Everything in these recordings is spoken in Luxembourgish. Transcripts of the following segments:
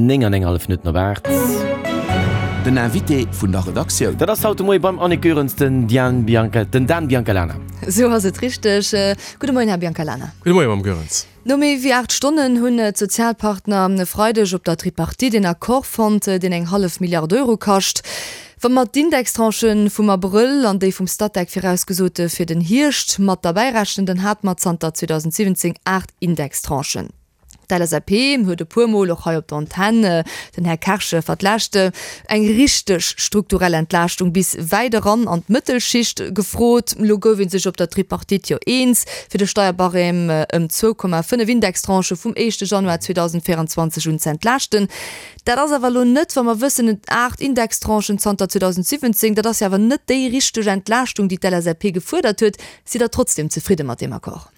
9 an eng hallef Minutten op 8. Den Invité vun der Redaktioun. Dat ass haut de Moie beim Annick Goerens den Diane Bianca, den Dan Biancalana. Esou ass et richteg. Gudde Moien, Här Biancalana. Gudde Moie, Mme Goerens. No méi wéi 8 Stonnen hunn d'Sozialpartner e Freideg op der Tripartite een Accord fonnt, deen eng hallef Milliard Euro kascht. Wa mer d'Indextranchë vum Abrëll an déi vum Statec virausgesote fir den Hierscht mat derbäi rechnen, dann hate mer zanter 2017 8 Indextranchen. D'LSAP huet e puer Mol och hei op der Antenn, den Här Kersch vertläscht, eng richteg strukturell Entlaaschtung bis wäit eran an d'Mëttelschicht gefrot. Elo gouf ee sech op der Tripartite jo eens, fir de Steierbarème ëm 2,5 Indextranchë vum éischte Januar 2024 un z'entlaaschten. Dat ass awer elo net, wa mer wëssen, et 8 Indextranchen zanter 2017, dat ass jo awer net déi richteg Entlaaschtung, déi d'LSAP gefuerdert huet. Sidd Der trotzdem zefridde mat deem Accord?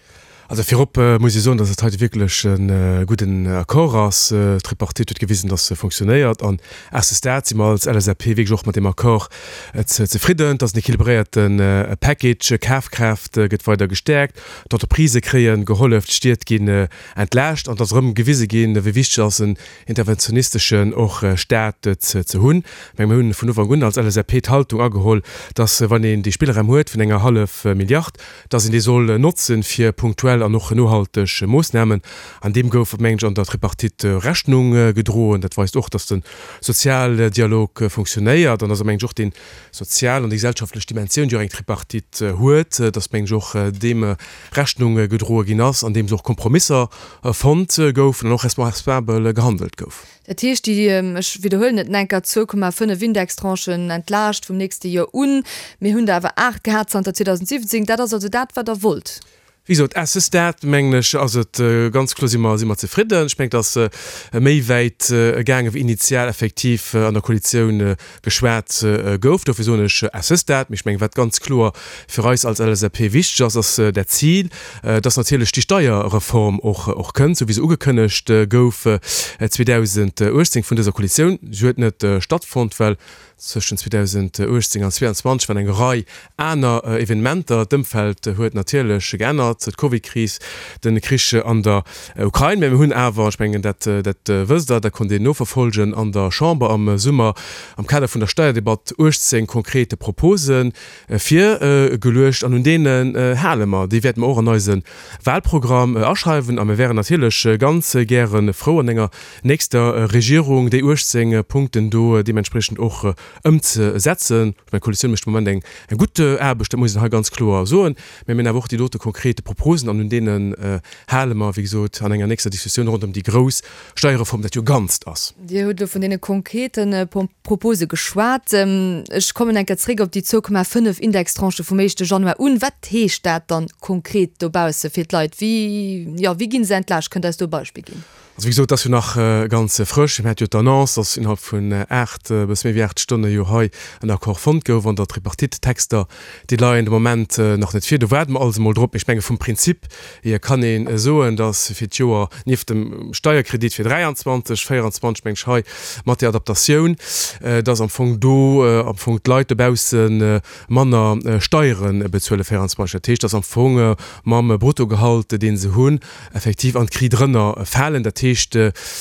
Also virop muss ee soen, datt et heite wierklech e gudden Accord ass. D'Tripartite huet gewisen, datt se fonctionnéiert. An à ce stade si mer als LSAP wierklech och mat deem Accord zefridden. Et ass en équilibréierte Package. Kafkraaft gëtt weider gestäerkt, d'Entreprisë kréie gehollef, d'Stied ginn entlaascht an et ass erëm gewise ginn, wéi wichteg ass en interventionisteschen och Staat ze hunn. Ech menge mir hunn vun Ufank un als LSAP d'Haltung ageholl, datt wann een dee Spillraum huet vun enger hallef Milliard, dass een dee soll notzen fir punktuell an och nohalteg Moossnamen. An deem gouf, mengen ech, an der Tripartite Rechnung gedroen. Dat weist och, dass de Sozialdialog funktionéiert an dass, mengen ech, och déi sozial an déi gesellschaftlech Dimensioun, déi och eng Tripartite huet, dass, mengen ech, och deem Rechnung gedroe ginn ass, andeems och Kompromisser fonnt goufen an och responsabel gehandelt gouf. Dat heescht, déi, ech widderhuelen et enker, 2,5 Indextranchen entlaascht vum nächste Joer un. Mir hunn der awer 8 gehat zanter 2017. Dat ass also dat, wat Der wollt? Wéi gesot, à ce stade, mengen ech, ass et ganz kloer, si mer, si mer zefridden. Ech mengen, et ass méi wäit gaange wéi initial effektiv an der Koalitioun geschwat gouf. Dofir soen ech à ce stade. Mee ech mengen, wat ganz kloer fir eis als LSAP wichteg ass, ass dat Zil, dass natierlech déi Steierreform och och kënnt, esou wéi se ugekënnegt gouf 2018 vun dëser Koalitioun. Se huet net stattfonnt, well zwëschen 2018 an 2022 waren eng Rei aner Evenementer. D'Ëmfeld huet natierlech geännert, d'Covidkris, de Krich an der Ukrain. Mä mir hunn awer, ech mengen, dat dat wësst Der, dat konnt een noverfolgen an der Chamber am Summer am Kader vun der Steierdebatt, 18 konkrete Propose virgeluecht an un deenen hale mer. Déi wäerte mer och an eise Wahlprogramm aschreiwen a mir wären natierlech ganz gäre frou, an enger nächster Regierung déi 18 Punkten do deementspriechend och ëmzesetzen. Ech mengen, d'Koalitioun mécht de Moment eng gutt Aarbecht, dat muss een hei ganz kloer soen. Mä mir hunn awer och déi dote konkrete Proposen an un deenen hale mer, wéi gesot, an enger nächster Diskussioun ronderëm déi grouss Steierreform, dat jo Ganzt ass. Dir hutt elo vun deene konkrete Propose geschwat. Ech kommen eng Kéier zréck op déi 2,5 Indextranchë vum éischte Januar un. Wat heescht dat dann konkret dobausse fir d'Leit? Wéi, jo, wéi gi se entlaascht? Kënnt Der eis do e Beispill ginn? Also wéi gesot, et ass jo nach ganz frësch. Mir hate jo d'Annonce, dass innerhalb vun 8, e bësse méi wéi 8 Stonne jo hei en Accord fonnt gouf an der Tripartite. D'Texter, déi leien de Moment nach net vir. Do waarde mer alles emol drop. Mee ech menge vum Prinzip hier kann ee soen, dass fir d'Joer, nieft dem Steierkredit fir 23, 24 meng ech hei mat där Adaptatioun, dass am Fong do am Fong d'Leit dobausse manner Steiere bezuele 24. Dat heescht, dass am Fong mam Bruttogehalt, dee se hunn, effektiv an d'Kri drënner falen, dat heescht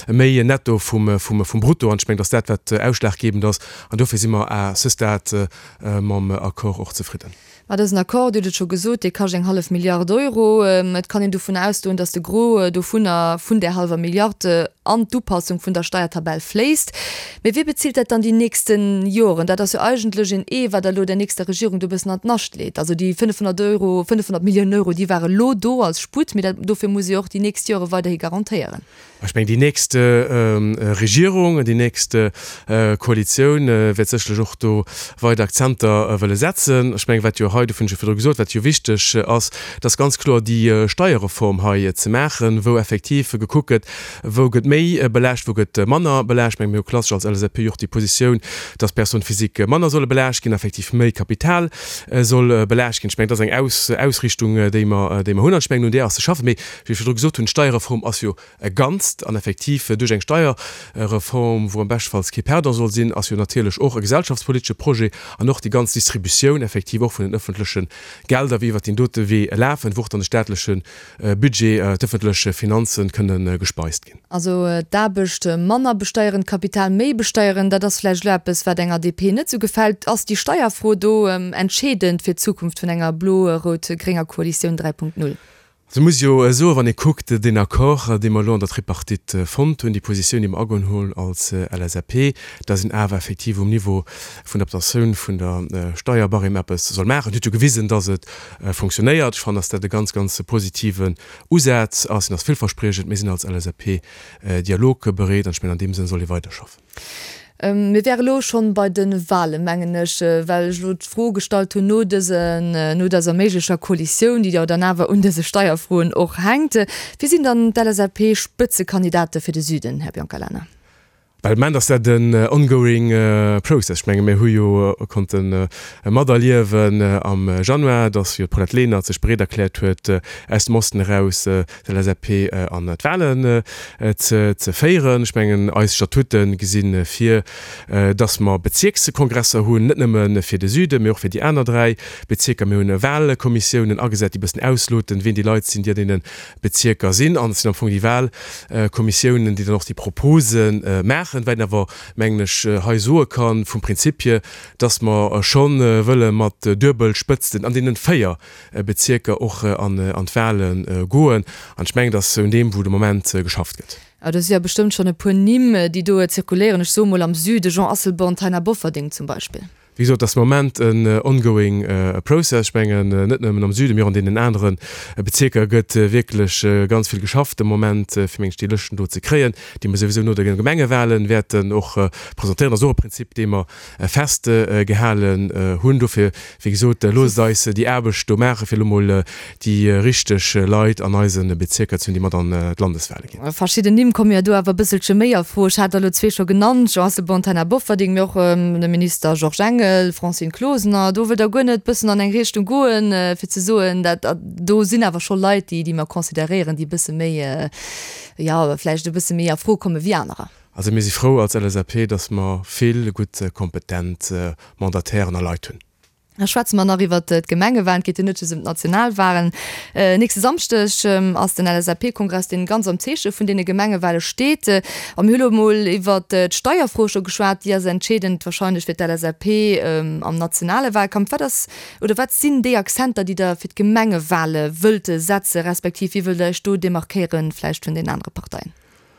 méi Netto vum Brutto. An ech mengen, dass dat wat ausschlaggebend ass. An dofir si mer à ce stade mam Accord och zefridden. Mä dësen Accord, Dir hutt et scho gesot, dee kascht eng hallef Milliard Euro. Et kann een dovun ausgoen, dass de Gros dovunner, vun där hallwer Milliard, an d'Upassung vun der Steiertabell fléisst. Mee wie bezilt dat dann déi nächste Joren? Dat ass jo eigentlech een Ee, wat Der elo der nächster Regierung do e bëssen an d'Nascht leet. Also déi 500 Euro, 500 Milliounen Euro, déi ware lo do als Sputt, mee dat, dofir muss ee jo och déi nächst Jore weiderhi garantéieren. Ech mengen, déi nächst Regierung, déi nächst Koalitioun wäert sécherlech och do weider Akzenter wëlle setzen. Ech mengen, wat jo hei, dofir hunn ech jo virdru gesot, wat jo wichteg ass, dat ass ganz kloer déi Steierreform hei ze maachen, wou effektiv gekuckt gëtt, Wou gëtt méi belaascht, wou gëtt manner belaascht? Meng mir hu klassesch als LSAP jo och déi Positioun, dass Personnes physiques manner solle belaascht ginn, effektiv méi Kapital soll belaascht ginn. Ech mengen, dat ass eng Aus Ausrichtung, déi mer, déi mer hunn. An ech mengen, un där ass ze schaffen. Mee wéi ech virdru gesot hunn, d'Steierreform ass jo e Ganzt. Ganzt. An effektiv duerch eng Steierreform, wou am beschtefalls kee Perdant soll sinn, ass jo natierlech och e gesellschaftspolitesche Projet an och déi ganz Distributioun effektiv och vun den ëffentleche Gelder, wéi iwwert deen dote Wee lafen, wou och dann de staatleche Budget, d'ëffentlech Finanzen kënne gespeist ginn. Also d'Aarbecht manner besteieren, d'Kapital méi besteieren, dat ass vläicht elo eppes, wat enger DP net esou gefält. Ass déi Steierfro do entscheedend fir d'Zukunft vun enger blo-rout-grénger Koalitioun 3.0? Also muss jo soen, wann ee kuckt, deen Accord, dee mer elo an der Tripartite fonnt hunn, déi Positioun, déi mer ageholl hunn als LSAP, dass een awer effektiv um Niveau vun der Adaptatioun vun der Steierbarème eppes soll maachen, huet jo gewisen, dass et fonctionnéiert. Ech fannen, dass dat e ganz, ganz positiven Usaz ass, en ass villverspriechend. Mir sinn als LSAP dialogbereet an ech mengen, an deem Sënn soll ee weiderschaffen. Mir wäre elo schonn bei de Wahlen, mengen ech, well ech elo d'Fro gestallt hunn no dësen, no dëser méiglecher Koalitioun, déi jo dann awer un dëse Steierfroen och hänkt. Wie sinn dann d'LSAP-Spëtzekandidate fir de Süden, Här Biancalana? Well de Moment ass dat en ongoing process. Ech menge mir hu jo konnte materliewen am Januar, datt jo d'Paulette Lenert sech bereet erkläert huet, aus dem Osten eraus d'LSAP an d'Wahlen ze féieren. Ech mengen eis Statute gesi vir, datt mer Bezierkskongresser hunn, net nëmme fir de Süden, mee och fir déi aner 3 Bezierker. Mir hunn Wahlkommissiounen agesat, déi e bëssen ausloten, wien déi Leit sinn, déi an deene Bezierker sinn, an et sinn am Fong déi Wahlkommissiounen, déi dann och déi Propose maachen. Wat een awer, mengen ech, hei soe kann, vum Prinzip hier, dass mer scho wëlle mat Duebelspëtzten an deenen 4 Bezierker och an d'Wahle goen. An ech mengen, dass un deem, wou de Moment geschafft gëtt. A do si jo bestëmmt schonn e puer Nimm, déi do zirkuléieren. Ech soe mol am Süde Jean Asselborn, Taina Bofferding zum Beispill. Wéi gesot, et ass de Moment en ongoing process. Ech mengen, net nëmmen am Süden, mee och an deenen anere Bezierker gëtt wierklech ganz vill geschafft de Moment, fir meng ech déi Lëschten do ze kréien, déi mer souwisou no de Gemengewahlen wäerten och presentéieren. Dat ass och e Prinzip, dee mer festgehalen hunn. Dofir, wéi gesot, loosst eis déi Aarbecht do maachen, fir elo mol déi richteg Leit an eise Bezierker ze hunn, déi mat an d'Landeswahle ginn. Verschidden Nimm komme jo do awer e bësselche méi a Fro. Ech hat der elo zwee scho genannt, Jean Asselborn, Taina Bofferding, mee och de Minister Georges Engel, Francine Closener. Do wëllt Der guer net bëssen an eng Richtung goen, fir ze soen, dat do sinn awer scho Leit, déi, déi mer consideréieren, déi e bësse méi, jo, vläicht e bësse méi a Fro komme wéi anerer. Also mir si frou als LSAP, datt mer vill gutt, kompetent Mandatairen a Leit hunn. Da schwätze mer nach iwwert d'Gemengewahlen. Et geet jo net just ëm d'Nationalwahlen. Nächste Samschdeg ass den LSAP-Kongress, deen ganz am Zeeche vun deene Gemengewahle steet. A mir hu lo emol iwwert d'Steierfro scho geschwat. Déi ass entscheedend wahrscheinlech fir d'LSAP am nationale Wahlkampf. Wat ass oder wat sinn déi Akzenter, déi Der fir d'Gemengewahle wëllt setzen, respektiv wéi wëllt Der Iech do demarkéieren vläicht vun den anere Parteien?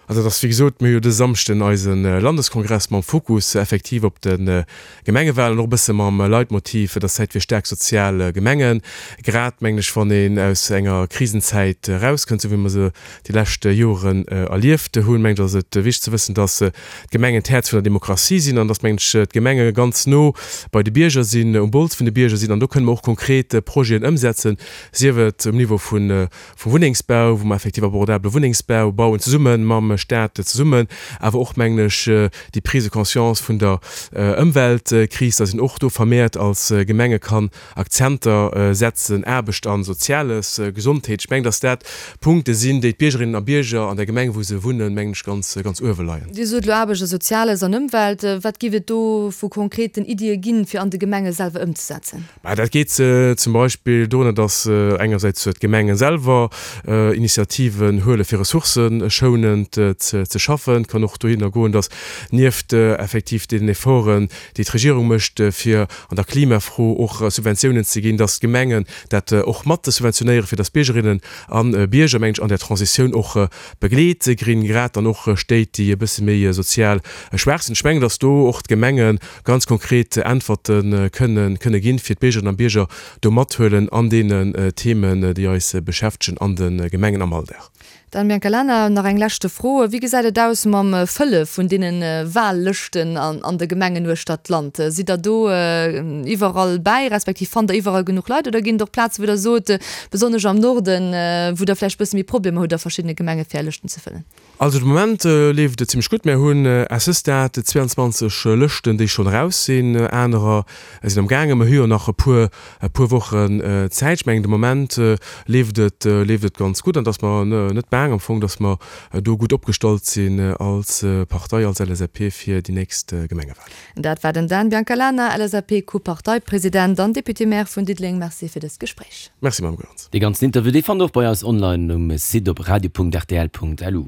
Also et ass wéi gesot, mir hu jo dëse Samschden eise Landeskongress mam Fokus effektiv op de Gemengewahlen, och e bësse mam Leitmotiv, et ass Zäit fir staark sozial Gemengen. Grad, mengen ech, wann een aus enger Krisenzäit erauskënnt, esou wéi mer se déi lescht Joren erlieft hunn, mengen ech, ass et wichteg ze wëssen, dass d'Gemengen d'Häerz vun der Demokratie sinn an dass, mengen ech, d'Gemenge ganz no bei de Bierger sinn, um Bols vun de Bierger sinn an do kënne mer och konkret Projeten ëmsetzen, sief et um Niveau vun vum Wunnengsbau, wou mer effektiv abordabele Wunnengsbau bauen, zesumme mam Stat zesummen, awer och, mengen ech, déi Prise de conscience vun der Ëmweltkris, dass een och do vermehrt als Gemenge kann Akzenter setzen, Aarbecht an Soziales, Gesondheet. Ech mengen, dass dat Punkte sinn, déi d'Biergerinnen a Bierger an der Gemeng, wou se wunnen, mengen ech, ganz, ganz uewe leien. Dir sot elo Aarbecht a Soziales an Ëmwelt. Wat géif et do vu konkreten Iddie ginn, fir an de Gemenge selwer ëmzesetzen? Mä dat geet zum Beispill dorënner, datt engersäits d'Gemenge selwer Initiativen huele fir ressourcëschounend ze schaffen. Et kann och dohinner goen, datt nieft effektiv deenen Efforten, déi d'Regierung mécht, fir an der Klimafro och Subventiounen ze ginn, datt d'Gemengen dat och mat subventionéieren, fir datt d'Biergerinnen a Bierger, mengen ech, an där Transitioun och begleet ginn, grad dann och Stéit, déi e bësse méi sozial schwaach sinn. Ech mengen, datt do och d'Gemenge ganz konkret Äntwerte kënne kënne ginn, fir d'Biergerinnen a Bierger do mathuelen an deenen Themen, déi eis beschäftegen an de Gemengen am Alldag. Dan Biancalana, nach eng leschte Fro, Wéi gesäit et aus mam Fëlle vun deene Wahllëschten an de Gemengen uechter d'Land? Sidd Der do iwwerall bäi, respektiv fannt Der iwwerall genuch Leit oder ginn et och Plazen, wou Der sot, besonnesch am Norden, wou Der vläicht e bësse méi Problemer hutt a verschiddene Gemenge fir Är Lëschten ze fëllen? Also de Moment leeft et zimmlech gutt. Mär hunn à ce stade 22 Lëschten, déi schonn eraus sinn. Anerer sinn am gaangen. Mer hu jo nach e puer, e puer Wochen Zäit. Ech mengen de Moment leeft et, leeft et ganz gutt an dass mer net baang am Fong, dass mer do gutt opgestallt sinn als Partei, als LSAP fir déi nächst Gemengewahlen. Dat war den Dan Biancalana, LSAP-Co-Parteipresident an Député-Maire vun Diddeleng. Merci fir dëst Gespréich. Merci, Mme Goerens. Dee ganzen Interview, dee fannt der och bei eis online um Site op radio.rtl.lu.